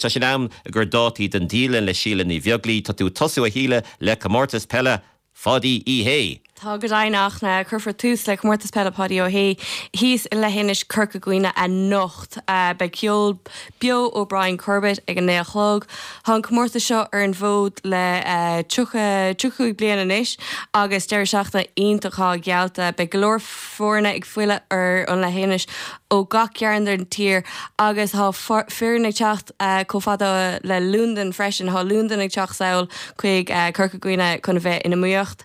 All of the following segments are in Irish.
tá sé in am ag cur dátaí don dialann le Síle Ní Bheaglaoi. Tá tú ag tosú, a Shíle, le Comórtas Peile Pháidí Uí Shé. Tá go deimhin, a Fhachtna. Cuirfear tús le Comórtas Peile Pháidí Ó Shé thíos i Leithinis Corca Dhuibhne anocht. Beidh ceol beo ó Brian Corbett ag a 9 a chlog. Tá an comórtas seo ar an bhfód le 30, 35 bliain anois agus deireadh seachtaine iontach atá geallta. Beidh go leor foirne ag filleadh ar an leithinis ó gach cearn den tír agus tá foireann ag teacht chomh fada le Londain freisin. Tá Londain ag teacht sall chuig Corca Dhuibhne chun a bheith in iomaíocht.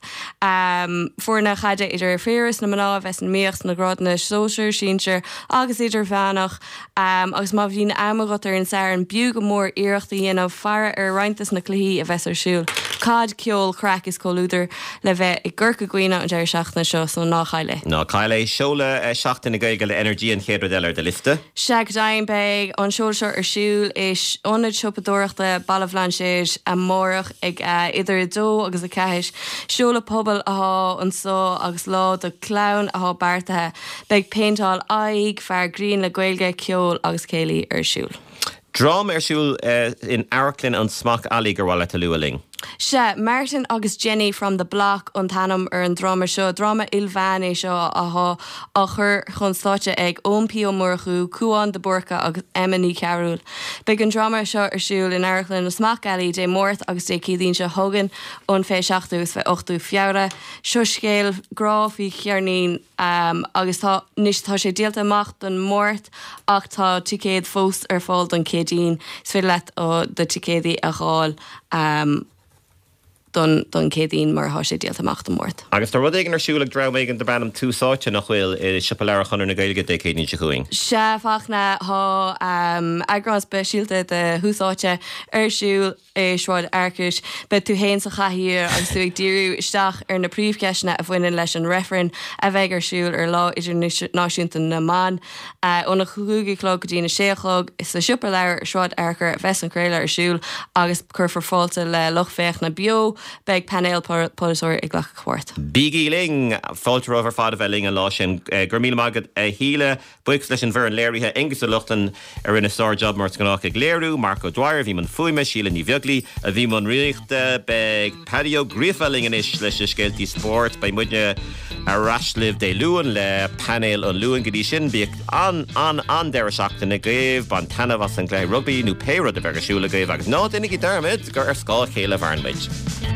Foirne chaide idir fir is na mná a bheas in iomaíocht sna grádanna sóisir, sinsir agus idirmheánach. Agus má bhíonn am agat ar an Satharn, b'fhiú go mór iarracht a dhéanamh faire ar roinnt des na cluichí a bheas ar siúl. Caid, ceol, craic is comhluadar le bheith i gCorca Dhuibhne an deireadh seachtaine seo, so ná caill é. Ná caill é. Seoladh Seachtain na Gaeilge le Energy an chéad rud eile ar do liosta. Sea, go deimhin, beidh an seoladh seo ar siúl i Ionad Siopadóireachta Baile Bhlainséid amárach ag idir 2 agus 4. Seoladh pobail atá anso agus lá do chlann atá beartaithe. Beidh péinteáil aghaidh, fear grinn le Gaeilge, ceol agus céilí ar siúl. Dráma ar siúl in Amharclann an Smock Alley gur mhaith leat a lua linn. Sea, Martin agus Jenny from the Block an t-ainm ar an dráma seo. Dráma ilmheán é seo atá á chur chun stáitse ag Eoin P Ó Murchú, Cúán de Búrca agus Emma Ní Chearúil. Beidh an dráma seo ar siúl in Amharclann an Smock Alley Dé Máirt agus Dé Céadaoin seo chugainn, an 27ú agus 28ú Feabhra. Seo scéal grá faoi cheirnín. Agus tá, anois tá sé díolta amach don Máirt ach tá ticéad fós ar fáil don Chéadaoin. Is féidir leat do ticéadaí a dh'fháil don don Chéadaoin mar tá sé díolta amach don Máirt. Agus tá rud éigin ar siúl ag dream éigin darb ainm Tús Áite, nach bhfuil, i Siopa Leabhar Chonradh na Gaeilge Dé Céadaoin seo chugainn? Sea, a Fhachtna, tá eagrán speisialta de Thús Áite ar siúl. i Sráid Fhearchair. Beidh tú fhéin sa chathaoir agus tú ag díriú isteach ar na príomhcheisteanna a bhaineann leis an reifreann a bheidh ar siúl ar Lá Idirnáisiúnta na mBan. Óna 5 a chlog go dtína 6 a chlog sa Siopa Leabhar i Sráid Fhearchair a bheas an craoladh ar siúl agus cuirfear fáilte le lucht féachana beo. Beidh painéal polaiteoirí ag glacadh páirt. Bígí linn! Fáilte romhaibh ar fad a bheith linn an lá sin. Go raibh míle maith agat a Shíle. Buíochas leis an bhfoireann léirithe, Aengus Ó Lochlainn a rinne sár-jab mar is gnách ag léiriú, Mark O'Dwyer a bhí i mbun fuaime, Síle Ní Bheaglaoi a bhí i mbun rúnaíochta. Beidh Paddy Ó Gríofa linn anois leis na scéaltaí spóirt. Beidh muidne ar ais libh Dé Luain le Painéal an Luain. Go dtí sin, bíodh an-an-an-deireadh seachtaine agaibh, bain taitneamh as an gcluiche rugbaí nó pé rud a bheidh ar siúl agaibh agus ná déanaigí dearmad gur ar scáth a chéile a mhaireann muid.